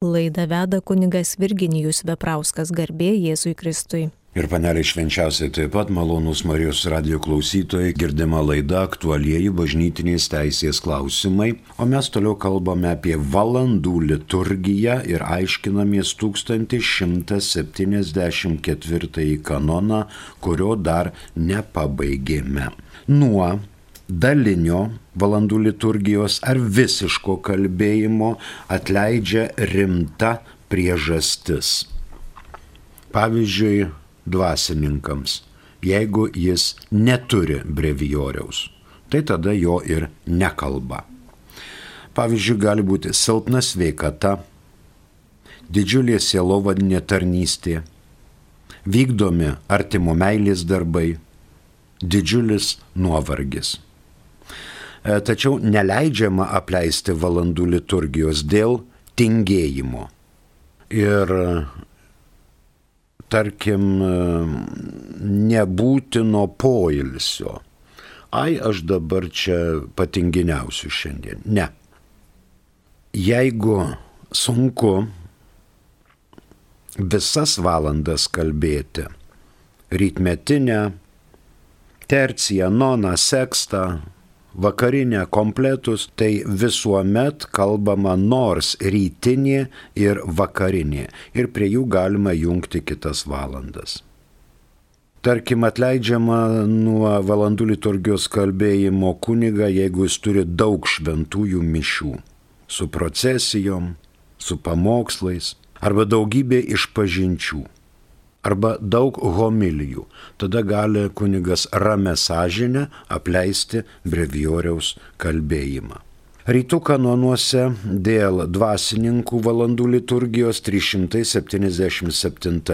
Laidą veda kunigas Virginijus Veprauskas, garbė Jėzui Kristui. Ir paneliai švenčiausiai taip pat malonūs Marijos radijo klausytojai, girdima laida aktualieji bažnytinės teisės klausimai, o mes toliau kalbame apie valandų liturgiją ir aiškinamės 1174 kanoną, kurio dar nepabaigėme. Nuo dalinio valandų liturgijos ar visiško kalbėjimo atleidžia rimta priežastis. Pavyzdžiui, dvasininkams, jeigu jis neturi brevijoriaus, tai tada jo ir nekalba. Pavyzdžiui, gali būti silpna sveikata, didžiulė sielovadinė tarnystė, vykdomi artimo meilės darbai, didžiulis nuovargis. Tačiau neleidžiama apleisti valandų liturgijos dėl tingėjimo. Ir tarkim, nebūtino poilsio. Aš dabar čia patinginiausiu šiandien. Ne. Jeigu sunku visas valandas kalbėti, rytmetinę, terciją, noną, sekstą, vakarinę, kompletus, tai visuomet kalbama nors rytinė ir vakarinė. Ir prie jų galima jungti kitas valandas. Tarkim, atleidžiama nuo valandų liturgijos kalbėjimo kunigą, jeigu jis turi daug šventųjų mišių, su procesijom, su pamokslais, arba daugybė išpažinčių, arba daug homilijų. Tada gali kunigas ramia sąžine apleisti brevijoriaus kalbėjimą. Rytų kanonuose dėl dvasininkų valandų liturgijos 377.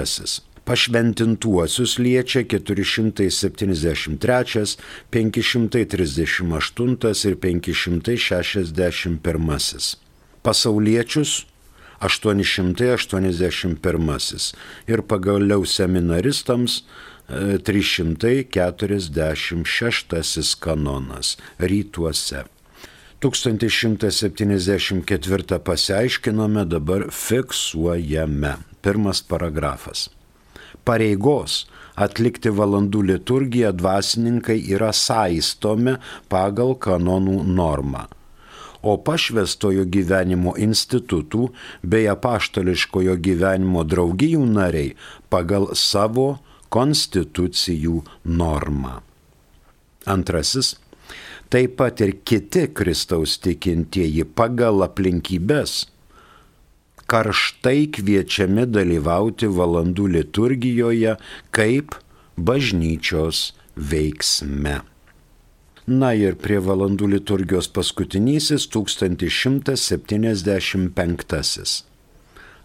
Pašventintuosius liečia 473, 538 ir 561. Pasauliečius 881 ir pagaliau seminaristams 346 kanonas rytuose. 1174 pasiaiškinome, dabar fiksuojame. Pirmas paragrafas. Pareigos atlikti valandų liturgiją dvasininkai yra saistomi pagal kanonų normą. O pašvęstojo gyvenimo institutų bei apaštališkojo gyvenimo draugijų nariai pagal savo konstitucijų normą. Antrasis, taip pat ir kiti Kristaus tikintieji pagal aplinkybes karštai kviečiami dalyvauti valandų liturgijoje kaip bažnyčios veiksme. Na ir prie valandų liturgijos paskutinysis 1175.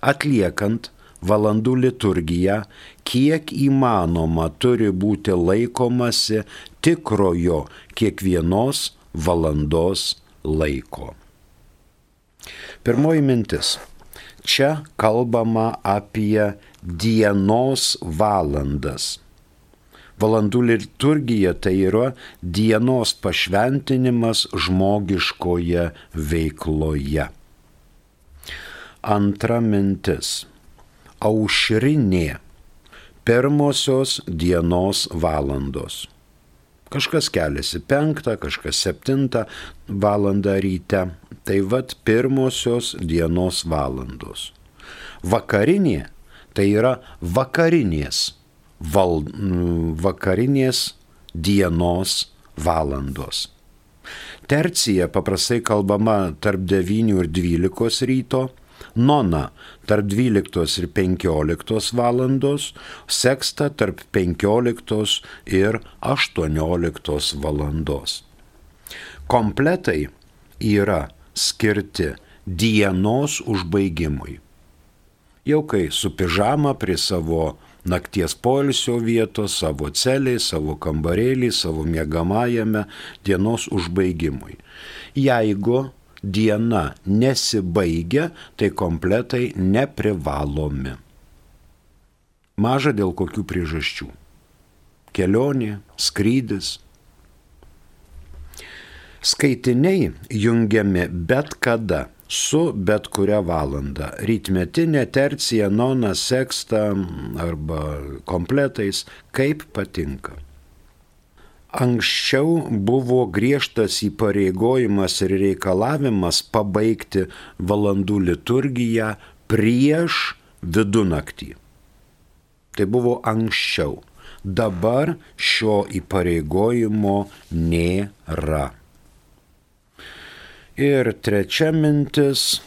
Atliekant valandų liturgiją, kiek įmanoma turi būti laikomasi tikrojo kiekvienos valandos laiko. Pirmoji mintis. Čia kalbama apie dienos valandas. Valandų liturgija tai yra dienos pašventinimas žmogiškoje veikloje. Antra mintis. Aušrinė. Pirmosios dienos valandos. Kažkas keliasi 5, kažkas 7 valandą ryte. Tai vat pirmosios dienos valandos. Vakarinė tai yra vakarinės dienos valandos. Tercija paprastai kalbama tarp 9 ir 12 ryto, nona tarp 12 ir 15 valandos, seksta tarp 15 ir 18 valandos. Kompletai yra skirti dienos užbaigimui. Jau kai su pižama prie savo nakties poilsio vietos, savo celėj, savo kambarėlį, savo miegamajame dienos užbaigimui. Jeigu diena nesibaigia, tai kompletai neprivalomi. Maža dėl kokių priežasčių. Kelionė, skrydis. Skaitiniai jungiami bet kada su bet kuria valanda. Rytmetinė, tercija, nona, seksta arba kompletais, kaip patinka. Anksčiau buvo griežtas įpareigojimas ir reikalavimas pabaigti valandų liturgiją prieš vidunaktį. Tai buvo anksčiau. Dabar šio įpareigojimo nėra. Ir trečia mintis.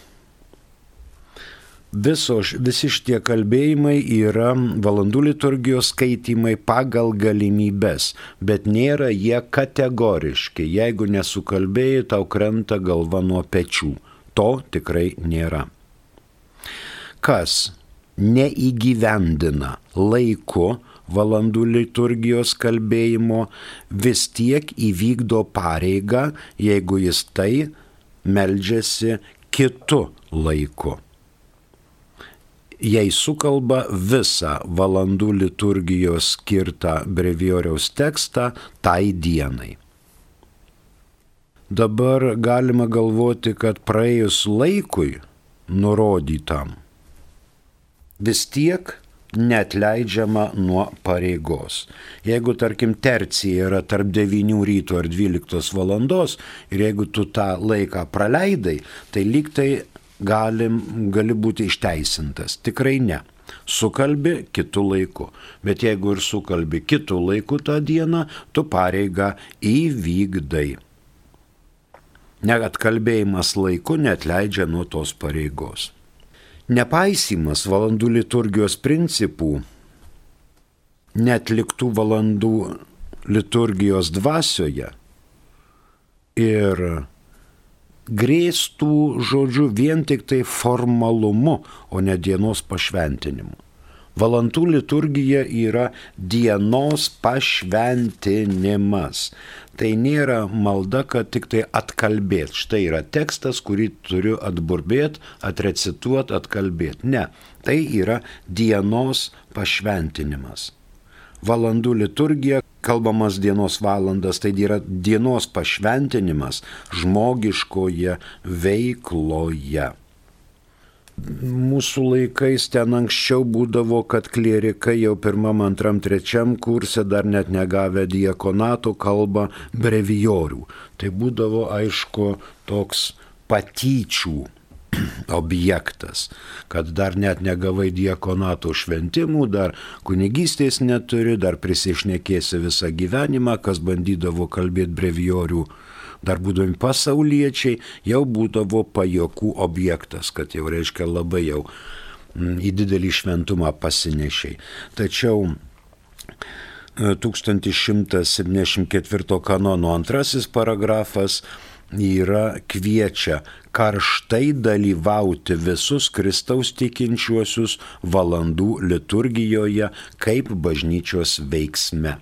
Visi šitie kalbėjimai yra valandų liturgijos skaitimai pagal galimybes, bet nėra jie kategoriški. Jeigu nesukalbėjai, tau krenta galva nuo pečių. To tikrai nėra. Kas neįgyvendina laiku valandų liturgijos kalbėjimo, vis tiek įvykdo pareigą, jeigu jis tai meldžiasi kitu laiku. Jei sukalba visą valandų liturgijos skirtą brevijoriaus tekstą tai dienai. Dabar galima galvoti, kad praėjus laikui nurodytam, vis tiek neatleidžiama nuo pareigos. Jeigu, tarkim, tercija yra tarp 9 ryto ir 12 valandos ir jeigu tu tą laiką praleidai, tai lyg tai gali būti išteisintas. Tikrai ne. Sukalbi kitų laiku. Bet jeigu ir sukalbi kitų laikų tą dieną, tu pareigą įvykdai. Net kalbėjimas laiku neatleidžia nuo tos pareigos. Nepaisymas valandų liturgijos principų, netliktų valandų liturgijos dvasioje ir grėstų, žodžiu, vien tik tai formalumu, o ne dienos pašventinimu. Valandų liturgija yra dienos pašventinimas. Tai nėra malda, kad tik tai atkalbėt. Štai yra tekstas, kurį turiu atburbėt, atrecituot, atkalbėt. Ne, tai yra dienos pašventinimas. Valandų liturgija, kalbamas dienos valandas, tai yra dienos pašventinimas žmogiškoje veikloje. Mūsų laikais ten anksčiau būdavo, kad klierikai jau 1., 2., 3. kurse dar net negavę diakonato kalba brevijorių. Tai būdavo, aišku, toks patyčių objektas, kad dar net negavai diakonato šventimų, dar kunigystės neturi, dar prisišnekėsi visą gyvenimą, kas bandydavo kalbėti brevijorių, dar būdami pasauliečiai, jau būdavo pajokų objektas, kad jau reiškia labai jau į didelį šventumą pasinešiai. Tačiau 1174 kanono 2 paragrafas kviečia karštai dalyvauti visus Kristaus tikinčiuosius valandų liturgijoje kaip bažnyčios veiksme.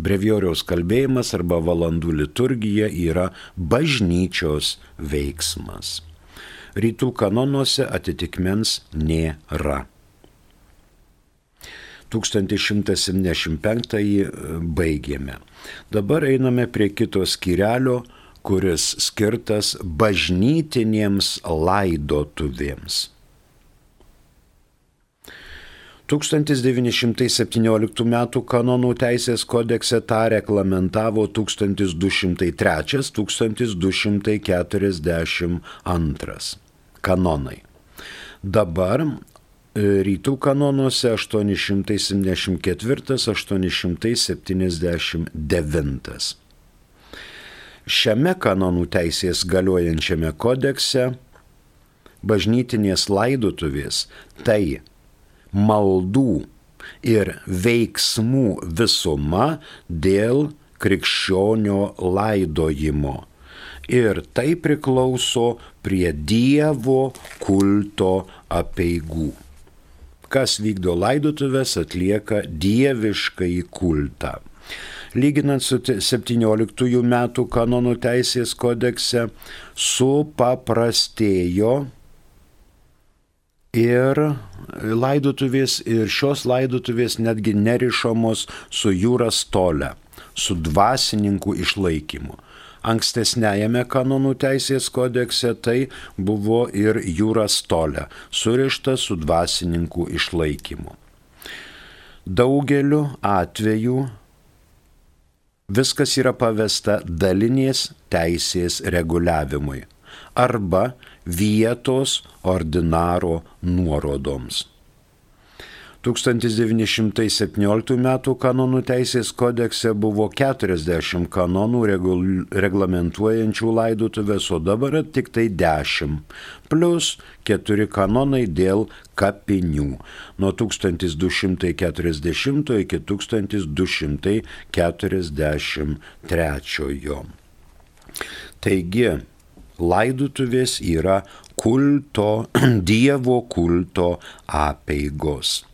Brevijoriaus kalbėjimas arba valandų liturgija yra bažnyčios veiksmas. Rytų kanonuose atitikmens nėra. 1175 baigėme. Dabar einame prie kito skyrelio, kuris skirtas bažnytinėms laidotuvėms. 1917 m. kanonų teisės kodekse tą reglamentavo 1243-1242 kanonai. Dabar rytų kanonuose 874-879. Šiame kanonų teisės galiojančiame kodekse bažnytinės laidotuvės tai maldų ir veiksmų visuma dėl krikščionio laidojimo. Ir tai priklauso prie Dievo kulto apeigų. Kas vykdo laidotuvės, atlieka dieviškąjį kultą. Lyginant su 17 metų kanonų teisės kodekse, supaprastėjo ir laidotuvės, ir šios laidotuvės netgi nerišamos su jūra stole, su dvasininkų išlaikymu. Ankstesniajame kanonų teisės kodekse tai buvo ir iuras tolė, surišta su dvasininkų išlaikymu. Daugeliu atveju viskas yra pavesta dalinės teisės reguliavimui arba vietos ordinaro nuorodoms. 1917 m. kanonų teisės kodekse buvo 40 kanonų reglamentuojančių laidotuvės, o dabar tik tai 10, plus 4 kanonai dėl kapinių nuo 1240 iki 1243. Taigi, laidotuvės yra Dievo kulto apeigos.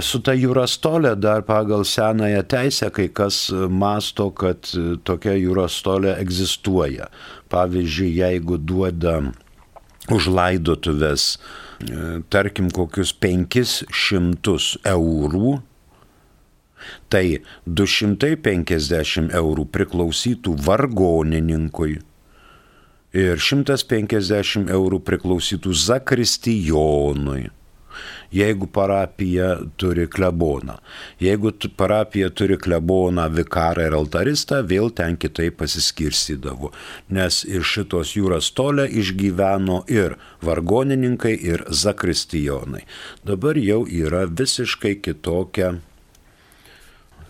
Su ta iuras tolė dar pagal senąją teisę kai kas masto, kad tokia iuras tolė egzistuoja. Pavyzdžiui, jeigu duoda už laidotuvės, tarkim, kokius 500 eurų, tai 250 eurų priklausytų vargonininkui ir 150 eurų priklausytų zakristijonui. Jeigu parapija turi kleboną. Jeigu parapija turi kleboną, vikarą ir altaristą, vėl ten kitaip pasiskirstydavo. Nes iš šitos iuras tolė išgyveno ir vargonininkai, ir zakristijonai. Dabar jau yra visiškai kitokia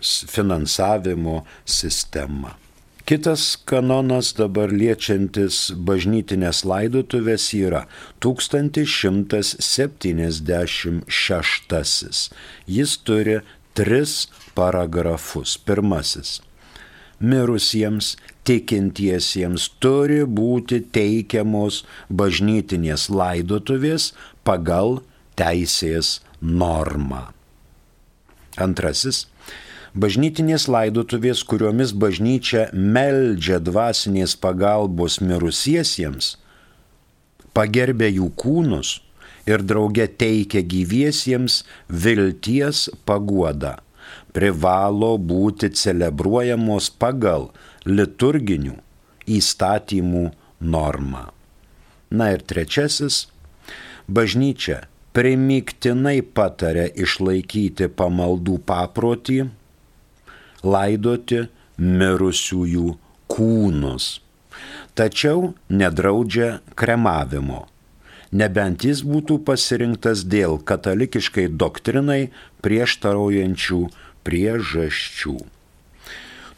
finansavimo sistema. Kitas kanonas dabar liečiantis bažnytinės laidotuvės yra 1176. Jis turi 3 paragrafus. Pirmasis. Mirusiems tikintiesiems turi būti teikiamos bažnytinės laidotuvės pagal teisės normą. Antrasis. Bažnytinės laidotuvės, kuriomis bažnyčia meldžia dvasinės pagalbos mirusiesiems, pagerbia jų kūnus ir drauge teikia gyviesiems vilties paguodą, privalo būti celebruojamos pagal liturginių įstatymų normą. Na ir trečiasis, bažnyčia primygtinai pataria išlaikyti pamaldų paprotį, laidoti mirusiųjų kūnus. Tačiau nedraudžia kremavimo, nebent jis būtų pasirinktas dėl katalikiškai doktrinai prieštaraujančių priežasčių.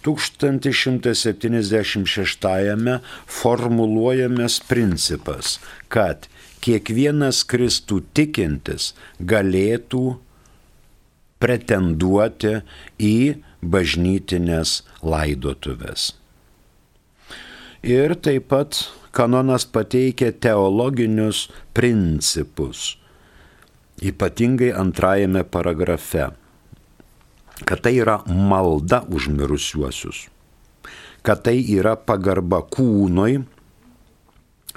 1176 formuluojamas principas, kad kiekvienas Kristų tikintis galėtų pretenduoti į bažnytinės laidotuvės. Ir taip pat kanonas pateikia teologinius principus, ypatingai antrajame paragrafe, kad tai yra malda už mirusiuosius, kad tai yra pagarba kūnui,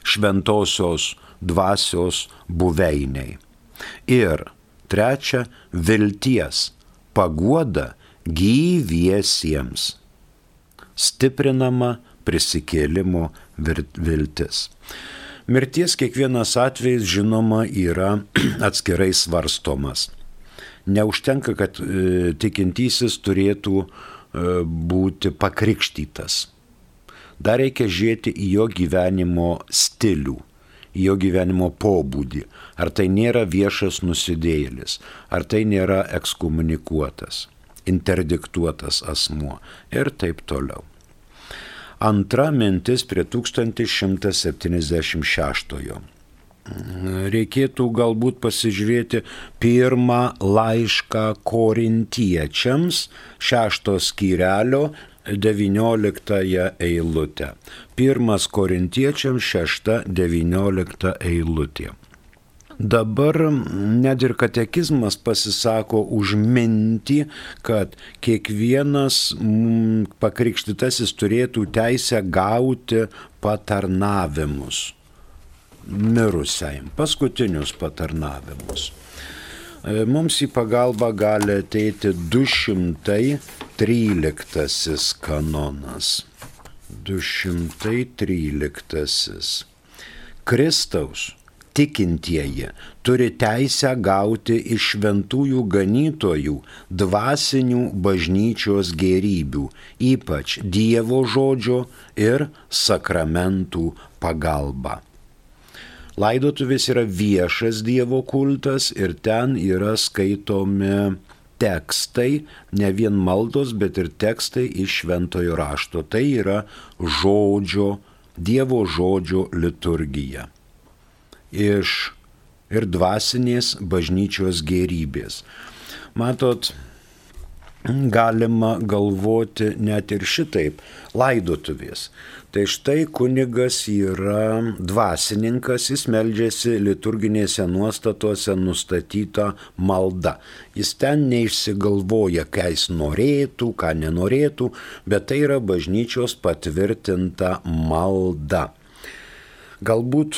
šventosios dvasios buveiniai. Ir trečia, vilties paguoda gyviesiems, stiprinama prisikėlimo viltis. Mirties kiekvienas atvejis, žinoma, yra atskirai svarstomas. Neužtenka, kad tikintysis turėtų būti pakrikštytas. Dar reikia žiūrėti į jo gyvenimo stilių, į jo gyvenimo pobūdį. Ar tai nėra viešas nusidėjėlis, ar tai nėra ekskomunikuotas, interdiktuotas asmuo ir taip toliau. Antra mintis prie 1176. Reikėtų galbūt pasižiūrėti pirmą laišką korintiečiams, 6 skyrelio 19 eilutę. 1 korintiečiams 6-19 eilutė. Dabar net ir katekizmas pasisako už mintį, kad kiekvienas pakrikštytasis turėtų teisę gauti patarnavimus mirusiajam, paskutinius patarnavimus. Mums į pagalbą gali ateiti 213 kanonas. 213. Kristaus tikintieji turi teisę gauti iš šventųjų ganytojų dvasinių bažnyčios gėrybių, ypač Dievo žodžio ir sakramentų pagalba. Laidotuvės yra viešas Dievo kultas ir ten yra skaitomi tekstai, ne vien maldos, bet ir tekstai iš šventojo rašto. Tai yra Dievo žodžio liturgija. Ir dvasinės bažnyčios gėrybės. Matot, galima galvoti net ir šitaip, laidotuvės. Tai štai kunigas yra dvasininkas, jis meldžiasi liturginėse nuostatuose nustatyta malda. Jis ten neišsigalvoja, ką jis norėtų, ką nenorėtų, bet tai yra bažnyčios patvirtinta malda. Galbūt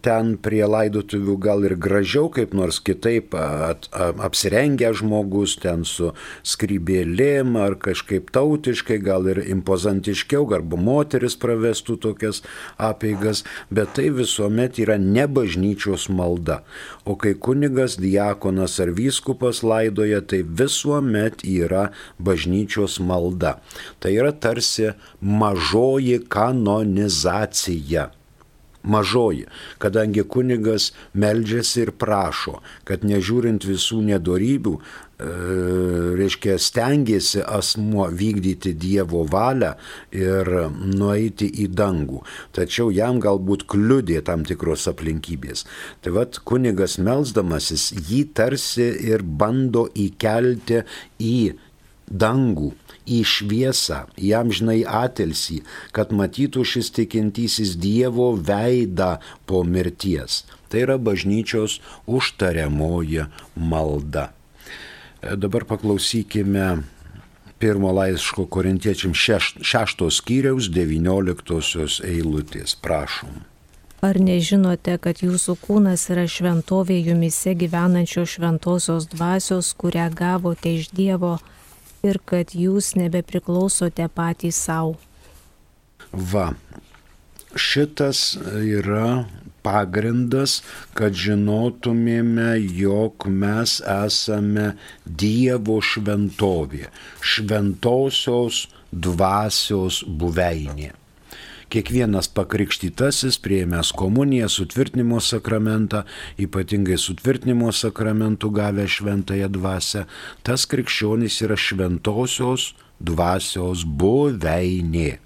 ten prie laidotuvių gal ir gražiau, kaip nors kitaip apsirengę žmogus, ten su skrybėlėm ar kažkaip tautiškai, gal ir impozantiškiau, arba moteris pravestų tokias apeigas, bet tai visuomet yra ne bažnyčios malda. O kai kunigas, diakonas ar vyskupas laidoja, tai visuomet yra bažnyčios malda. Tai yra tarsi mažoji kanonizacija. Mažoji, kadangi kunigas meldžiasi ir prašo, kad nežiūrint visų nedorybių, stengiasi asmuo vykdyti Dievo valią ir nueiti į dangų. Tačiau jam galbūt kliudė tam tikros aplinkybės. Tai vat kunigas melsdamasis jį tarsi ir bando įkelti į dangų, į šviesą, į amžinai atilsį, kad matytų šis tikintysis Dievo veidą po mirties. Tai yra bažnyčios užtariamoji malda. Dabar paklausykime pirmo laiško Korintiečiams 6 skyriaus 19 eilutės. Prašom. Ar nežinote, kad jūsų kūnas yra šventovė jumyse gyvenančios šventosios dvasios, kurią gavote iš Dievo, ir kad jūs nebepriklausote patys savo? Va, šitas yra pagrindas, kad žinotumėme, jog mes esame Dievo šventovė, šventosios dvasios buveinė. Kiekvienas pakrikštytasis, priėmęs komuniją, sutvirtinimo sakramentą, ypatingai sutvirtinimo sakramentų gavę šventąją dvasią, tas krikščionis yra šventosios dvasios buveinė.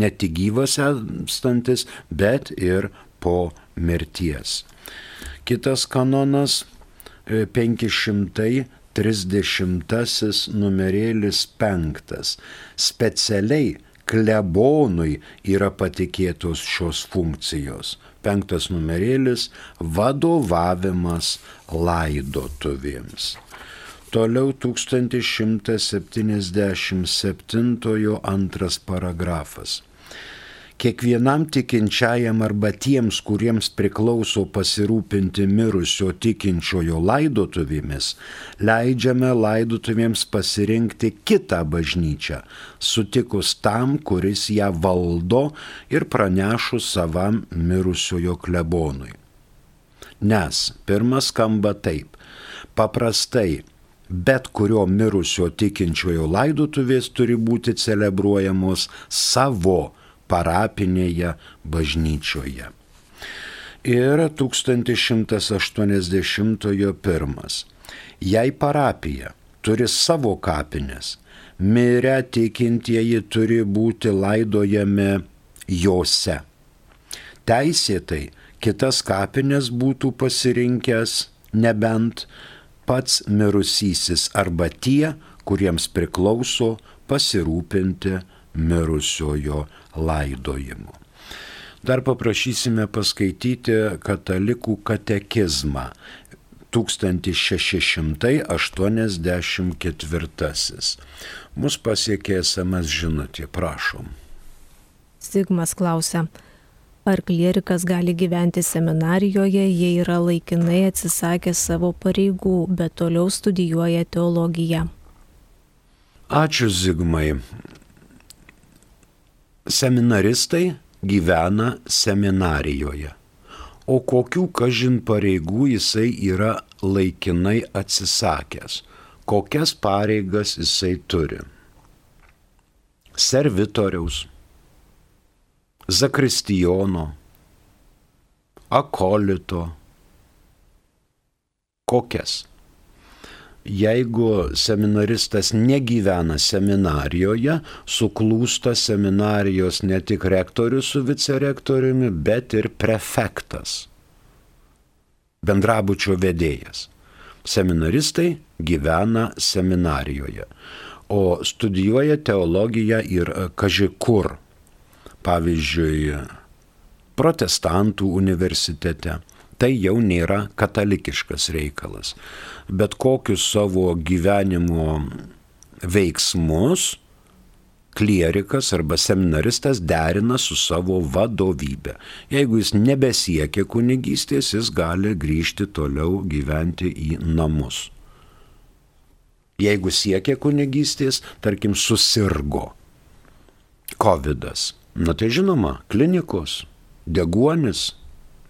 Ne tik gyvas esantis, bet ir po mirties. Kitas kanonas 530 numerėlis 5. Specialiai klebonui yra patikėtos šios funkcijos. 5 numerėlis – vadovavimas laidotuvėms. Toliau 1177 2 paragrafas. Kiekvienam tikinčiajam arba tiems, kuriems priklauso pasirūpinti mirusio tikinčiojo laidotuvėmis, leidžiame laidotuvėms pasirinkti kitą bažnyčią, sutikus tam, kuris ją valdo ir pranešus savam mirusiojo klebonui. Nes pirmas skamba taip: paprastai bet kurio mirusio tikinčiojo laidotuvės turi būti celebruojamos savo parapinėje bažnyčioje. Ir 1181. Jei parapija turi savo kapines, mirę tikintieji turi būti laidojami jose. Teisėtai kitas kapines būtų pasirinkęs nebent pats mirusysis arba tie, kuriems priklauso pasirūpinti mirusiojo laidojimu. Dar paprašysime paskaityti katalikų katekizmą 1684. Mus pasiekė SMS žinutė, prašom. Zigmas klausia, ar klierikas gali gyventi seminarijoje, jei yra laikinai atsisakęs savo pareigų, bet toliau studijuoja teologiją? Ačiū, Zigmai. seminaristai gyvena seminarijoje. O kokių kažin pareigų jisai yra laikinai atsisakęs? Kokias pareigas jisai turi? Servitoriaus, zakristijono, akolito. Kokias? Jeigu seminaristas negyvena seminarijoje, suklūsta seminarijos ne tik rektorius su vicerektoriumi, bet ir prefektas, bendrabučio vedėjas. Seminaristai gyvena seminarijoje, o studijuoja teologiją ir kaži kur. Pavyzdžiui, protestantų universitete. Tai jau nėra katalikiškas reikalas. Bet kokius savo gyvenimo veiksmus klierikas arba seminaristas derina su savo vadovybė. Jeigu jis nebesiekia kunigystės, jis gali grįžti toliau gyventi į namus. Jeigu siekia kunigystės, tarkim, susirgo covidas, tai žinoma, klinikos, deguonis,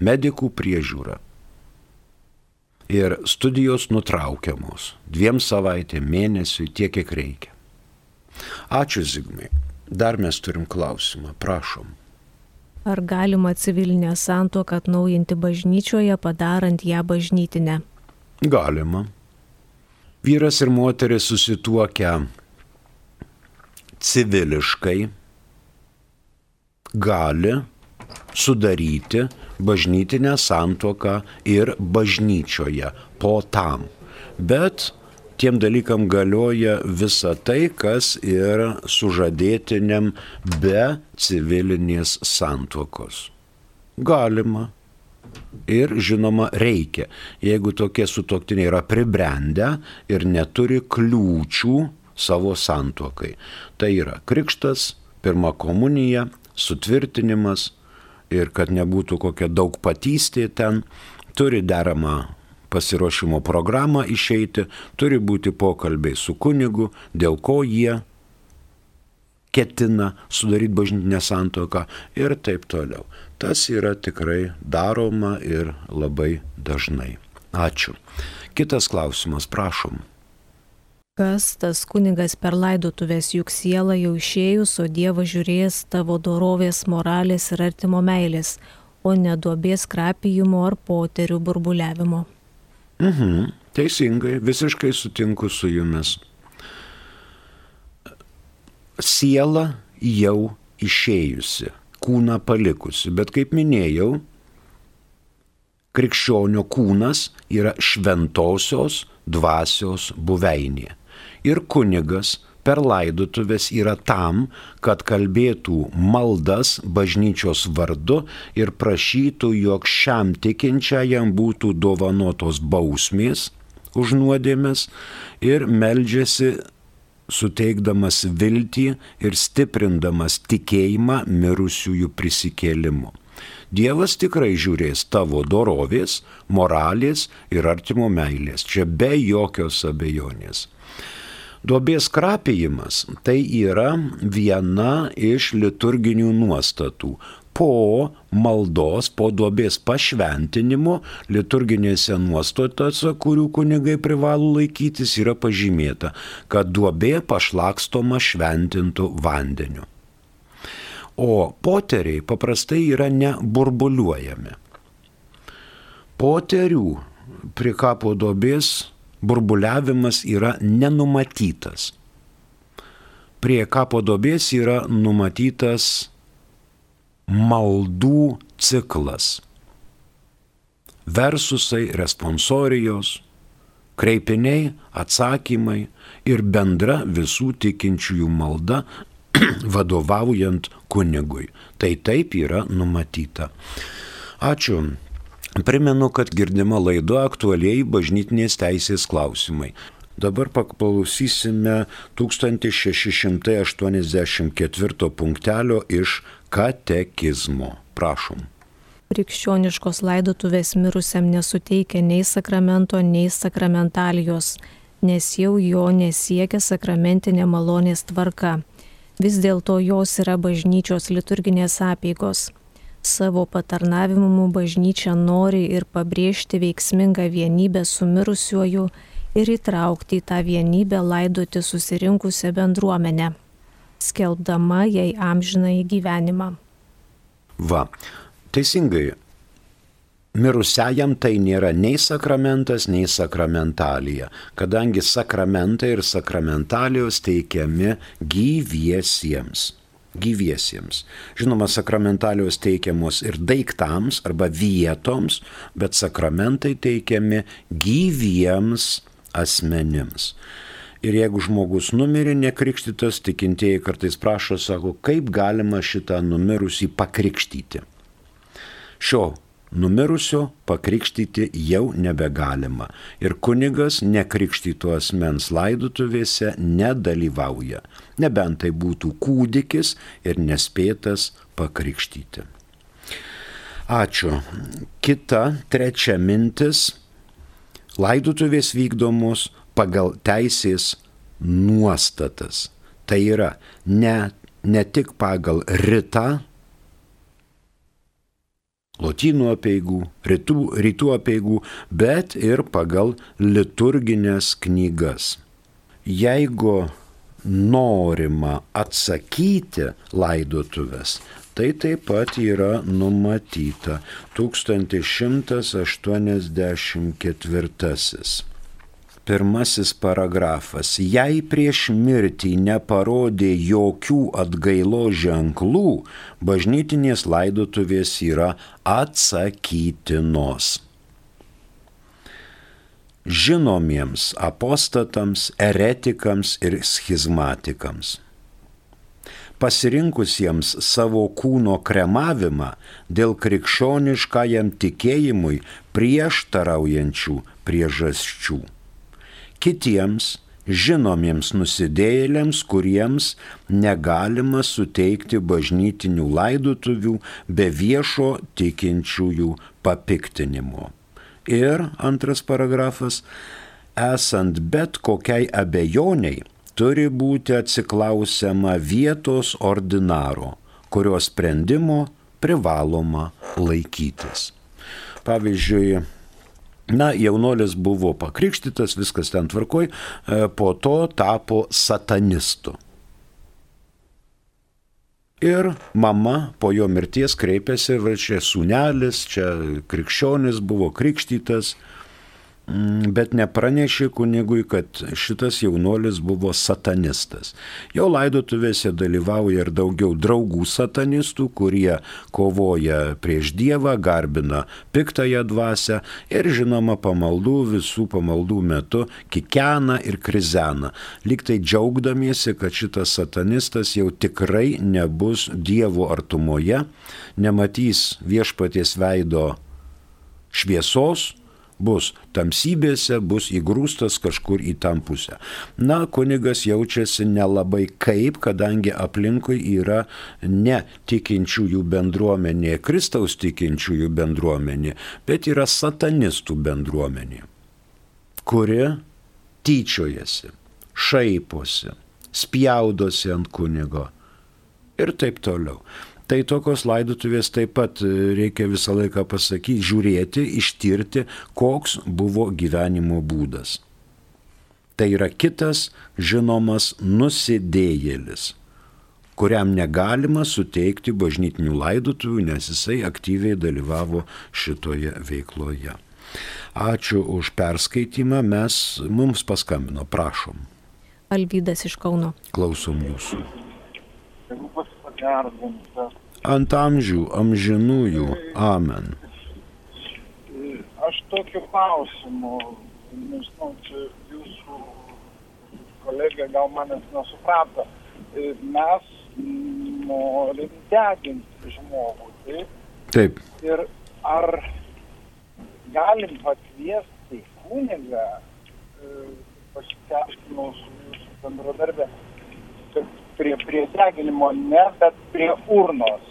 medikų priežiūra. Ir studijos nutraukiamos 2 savaitėm, mėnesiui, tiek, kiek reikia. Ačiū, Zigmai. Dar mes turim klausimą, prašom. Ar galima civilinę santuoką atnaujinti bažnyčioje, padarant ją bažnytinę? Galima. Vyras ir moteris susituokę civiliškai gali sudaryti bažnytinę santuoką ir bažnyčioje po tam. Bet tiem dalykam galioja visa tai, kas ir sužadėtiniam be civilinės santuokos. Galima. Ir žinoma reikia, jeigu tokie sutuoktiniai yra pribrendę ir neturi kliūčių savo santuokai. Tai yra krikštas, pirma komunija, sutvirtinimas, ir kad nebūtų kokia daugpatystė ten, turi deramą pasiruošimo programą išeiti, turi būti pokalbiai su kunigu, dėl ko jie ketina sudaryti bažnytinę santuoką ir taip toliau. Tas yra tikrai daroma ir labai dažnai. Ačiū. Kitas klausimas, prašom. Kas tas kunigas per laidotuvės, juk siela jau išėjus, o Dievas žiūrės tavo dorovės, moralės ir artimo meilės, o ne duobės krapijimo ar poterių burbuliavimo. Teisingai, visiškai sutinku su jumis. Siela jau išėjusi, kūną palikusi, bet kaip minėjau, krikščionio kūnas yra šventosios dvasios buveinė. Ir kunigas per laidotuvės yra tam, kad kalbėtų maldas bažnyčios vardu ir prašytų, jog šiam tikinčiajam būtų dovanotos bausmės už nuodėmes ir meldžiasi suteikdamas viltį ir stiprindamas tikėjimą mirusiųjų prisikėlimu. Dievas tikrai žiūrės tavo dorovės, moralės ir artimo meilės, čia be jokios abejonės. Duobės krapijimas tai yra viena iš liturginių nuostatų. Po maldos, po duobės pašventinimo liturginėse nuostatose, kurių kunigai privalo laikytis, yra pažymėta, kad duobė pašlakstoma šventintų vandeniu. O poteriai paprastai yra neburbuliuojami. Poterių prie kapo duobės burbuliavimas yra nenumatytas. Prie kapo duobės yra numatytas maldų ciklas. Versusai, responsorijos, kreipiniai, atsakymai ir bendra visų tikinčiųjų malda vadovaujant kunigui. Tai taip yra numatyta. Ačiū. Primenu, kad girdima laida aktualiai bažnytinės teisės klausimai. Dabar paklausysime 1684 punktelio iš katekizmo. Prašom. Krikščioniškos laidotuvės mirusiam nesuteikia nei sakramento, nei sakramentalijos, nes jau jo nesiekia sakramentinė malonės tvarka. Vis dėlto jos yra bažnyčios liturginės apeigos. Savo patarnavimu bažnyčia nori ir pabrėžti veiksmingą vienybę su mirusiuoju ir įtraukti į tą vienybę laidoti susirinkusią bendruomenę, skelbdama jai amžinąjį gyvenimą. Va, teisingai. Mirusiajam tai nėra nei sakramentas, nei sakramentalija, kadangi sakramentai ir sakramentalijos teikiami gyviesiems. Žinoma, sakramentalijos teikiamos ir daiktams arba vietoms, bet sakramentai teikiami gyviems asmenims. Ir jeigu žmogus numirė nekrikštytas, tikintieji kartais prašo, sako, kaip galima šitą numirusį pakrikštyti. Šio numirusio pakrikštyti jau nebegalima ir kunigas nekrikštyto asmens laidotuvėse nedalyvauja, nebent tai būtų kūdikis ir nespėtas pakrikštyti. Ačiū. Kita, trečia mintis. Laidotuvės vykdomos pagal teisės nuostatas. Tai yra ne tik pagal ritą, lotynų apeigų, rytų apeigų, bet ir pagal liturginės knygas. Jeigu norima atsakyti laidotuvės, tai taip pat yra numatyta 1184. Pirmasis paragrafas. Jei prieš mirtį neparodė jokių atgailos ženklų, bažnytinės laidotuvės yra atsakytinos. Žinomiems apostatams, eretikams ir schizmatikams. Pasirinkusiems savo kūno kremavimą dėl krikščioniškajam tikėjimui prieštaraujančių priežasčių. Kitiems žinomiems nusidėjėliams, kuriems negalima suteikti bažnytinių laidotuvių be viešo tikinčiųjų papiktinimo. Ir antras paragrafas, esant bet kokiai abejoniai, turi būti atsiklausiama vietos ordinaro, kurio sprendimo privaloma laikytis. Pavyzdžiui, jaunuolis buvo pakrikštytas, viskas ten tvarkoj, po to tapo satanistu. Ir mama po jo mirties kreipėsi, čia sūnelis, čia krikščionis buvo krikštytas, bet nepranešė kunigui, kad šitas jaunuolis buvo satanistas. Jo laidotuvėse dalyvauja ir daugiau draugų satanistų, kurie kovoja prieš Dievą, garbina piktąją dvasią ir žinoma visų pamaldų metu kikena ir krizena, lyg tai džiaugdamiesi, kad šitas satanistas jau tikrai nebus Dievo artumoje, nematys viešpaties veido šviesos, bus tamsybėse, bus įgrūstas kažkur į tą pusę. Kunigas jaučiasi nelabai kaip, kadangi aplinkui yra ne tikinčiųjų bendruomenė, Kristaus tikinčiųjų bendruomenė, bet yra satanistų bendruomenė, kuri tyčiojasi, šaiposi, spjaudosi ant kunigo ir taip toliau. Tai tokios laidotuvės taip pat reikia visą laiką pasakyti, žiūrėti, ištirti, koks buvo gyvenimo būdas. Tai yra kitas žinomas nusidėjėlis, kuriam negalima suteikti bažnytinių laidotuvių, nes jisai aktyviai dalyvavo šitoje veikloje. Ačiū už perskaitimą, mums paskambino, prašom. Alvydas iš Kauno. Klausom jūsų. Ant amžių, amžinųjų, amen. Aš tokiu klausimu, nežinau, čia jūsų kolegė gal manęs nesuprato, mes norim deginti žmogų, taip? Taip. Ir ar galim pakviesti kunigą, pasiaiškinau su jūsų bendradarbė, kad prie deginimo ne, bet prie urnos.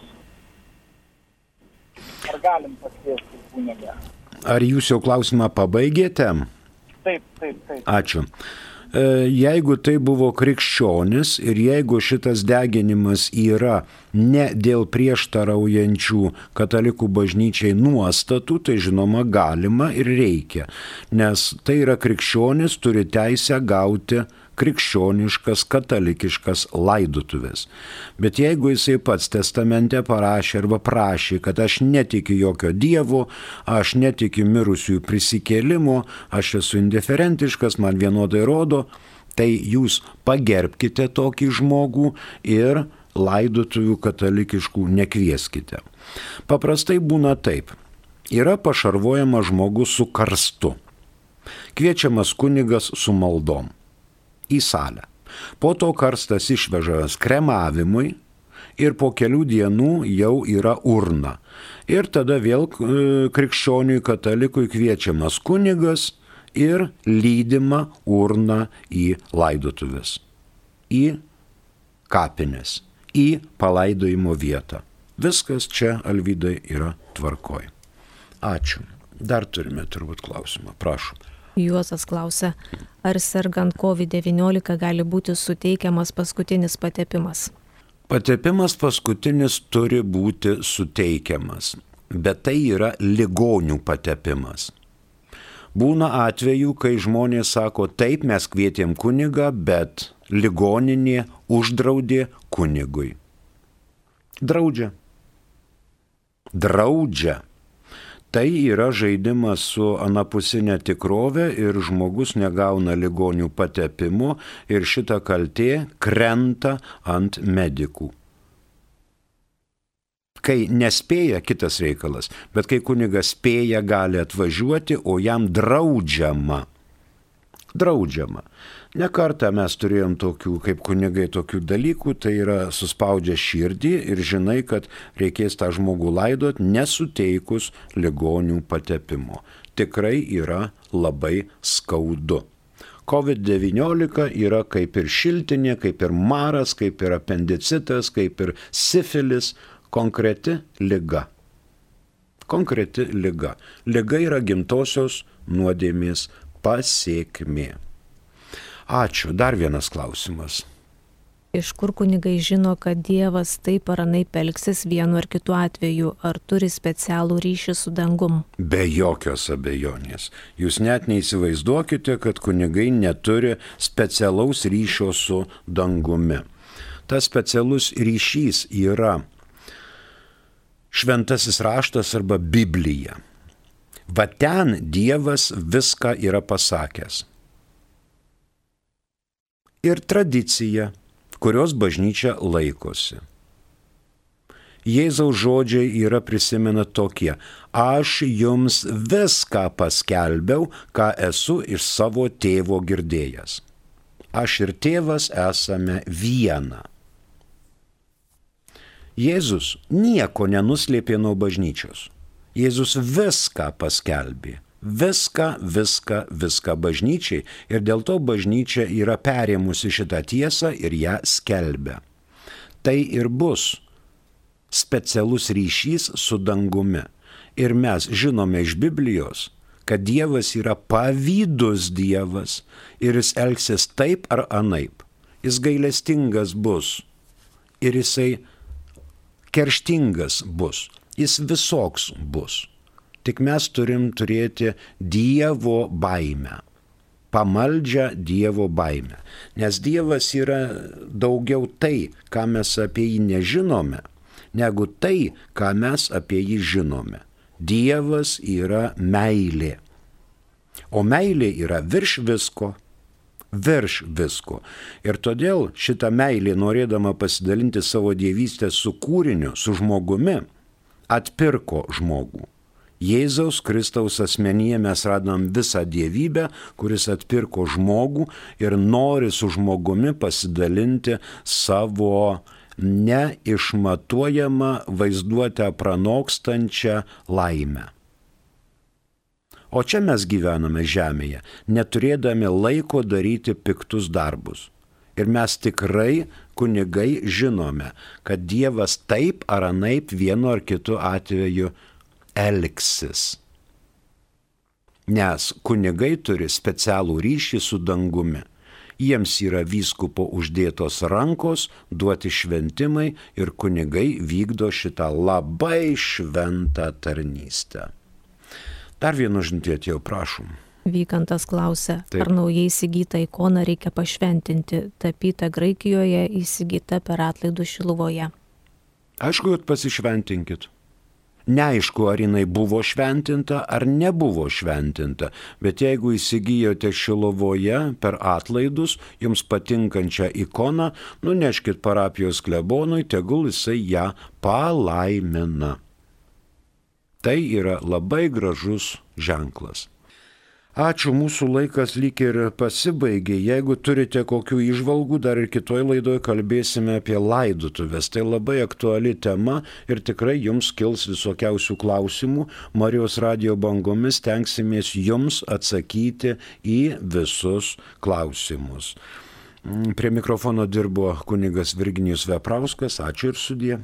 Ar galim pakviesti kunigą? Ar jūs jau klausimą pabaigėte? Taip. Ačiū. jeigu tai buvo krikščionis ir jeigu šitas deginimas yra ne dėl prieštaraujančių katalikų bažnyčiai nuostatų, tai žinoma galima ir reikia, nes tai yra krikščionis, turi teisę gauti krikščioniškas, katalikiškas laidotuvės. Bet jeigu jisai pats testamente parašė arba prašė, kad aš netikiu jokio dievo, aš netikiu mirusiųjų prisikėlimo, aš esu indiferentiškas, man vienodai rodo, tai jūs pagerbkite tokį žmogų ir laidotuvių katalikiškų nekvieskite. Paprastai būna taip. Yra pašarvojamas žmogus su karstu. Kviečiamas kunigas su maldom į salę. Po to karstas išvežamas kremavimui ir po kelių dienų jau yra urna. Ir tada vėl krikščioniui katalikui kviečiamas kunigas ir lydima urna į laidotuvės, į kapines, į palaidojimo vietą. Viskas čia, Alvydai, yra tvarkoj. Ačiū. Dar turime turbūt klausimą. Prašom. Juozas klausia, ar sergant COVID-19 gali būti suteikiamas paskutinis patepimas? Patepimas paskutinis turi būti suteikiamas, bet tai yra ligonių patepimas. Būna atvejų, kai žmonės sako, taip, mes kvietėm kunigą, bet ligoninė uždraudė kunigui. Draudžia. Tai yra žaidimas su anapusinė tikrovė ir žmogus negauna ligonių patepimo ir šita kaltė krenta ant medikų. Kai nespėja, kitas reikalas, bet kai kunigas spėja, gali atvažiuoti, o jam draudžiama. Ne kartą mes turėjom tokių, kaip kunigai, tokių dalykų, tai yra suspaudžia širdį ir žinai, kad reikės tą žmogų laidot nesuteikus ligonių patepimo. Tikrai yra labai skaudu. COVID-19 yra kaip ir šiltinė, kaip ir maras, kaip ir apendicitas, kaip ir sifilis, konkreti liga. Liga yra gimtosios nuodėmės pasekmė. Ačiū. Dar vienas klausimas. Iš kur kunigai žino, kad Dievas taip ar anaip elgsis vienu ar kitu atveju, ar turi specialų ryšį su dangum? Be jokios abejonės. Jūs net neįsivaizduokite, kad kunigai neturi specialaus ryšio su dangumi. Tas specialus ryšys yra šventasis raštas arba Biblija. Va ten Dievas viską yra pasakęs. Ir tradicija, kurios bažnyčia laikosi. Jėzaus žodžiai yra prisimena tokie: aš jums viską paskelbiau, ką esu iš savo tėvo girdėjęs. Aš ir tėvas esame viena. Jėzus nieko nenuslėpė nuo bažnyčios. Jėzus viską paskelbė. Viską bažnyčiai ir dėl to bažnyčia yra perėmusi šitą tiesą ir ją skelbia. Tai ir bus specialus ryšys su dangumi. Ir mes žinome iš Biblijos, kad Dievas yra pavydus Dievas ir jis elgsis taip ar anaip. Jis gailestingas bus ir jisai kerštingas bus. Jis visoks bus. Tik mes turim turėti Dievo baimę, pamaldžią Dievo baimę. Nes Dievas yra daugiau tai, ką mes apie jį nežinome, negu tai, ką mes apie jį žinome. Dievas yra meilė. O meilė yra virš visko. Ir todėl šitą meilę, norėdama pasidalinti savo dievystę su kūriniu, su žmogumi, atpirko žmogų. Jėzaus Kristaus asmenyje mes radom visą dievybę, kuris atpirko žmogų ir nori su žmogumi pasidalinti savo neišmatuojamą vaizduotę pranokstančią laimę. O čia mes gyvename žemėje, neturėdami laiko daryti piktus darbus. Ir mes tikrai, kunigai, žinome, kad Dievas taip ar anaip vienu ar kitu atveju elgsis. Nes kunigai turi specialų ryšį su dangumi. Jiems yra vyskupo uždėtos rankos, duoti šventimai ir kunigai vykdo šitą labai šventą tarnystę. Dar vienu žinutė atėjo, prašom. Vykantas klausia, Taip. ar naujai įsigytą ikoną reikia pašventinti, tapyta Graikijoje, įsigyta per atlaidus Šiluvoje. Aišku, kad pasišventinkit. Neaišku, ar jinai buvo šventinta ar nebuvo šventinta, bet jeigu įsigijote Šiluvoje per atlaidus jums patinkančią ikoną, nuneškit parapijos klebonui, tegul jisai ją palaimina. Tai yra labai gražus ženklas. Ačiū, mūsų laikas lyg ir pasibaigė. Jeigu turite kokių įžvalgų, dar ir kitoj laidoje kalbėsime apie laidotuvės. Tai labai aktuali tema ir tikrai jums kils visokiausių klausimų. Marijos radijo bangomis tenksimės jums atsakyti į visus klausimus. Prie mikrofono dirbo kunigas Virginijus Veprauskas. Ačiū ir sudie.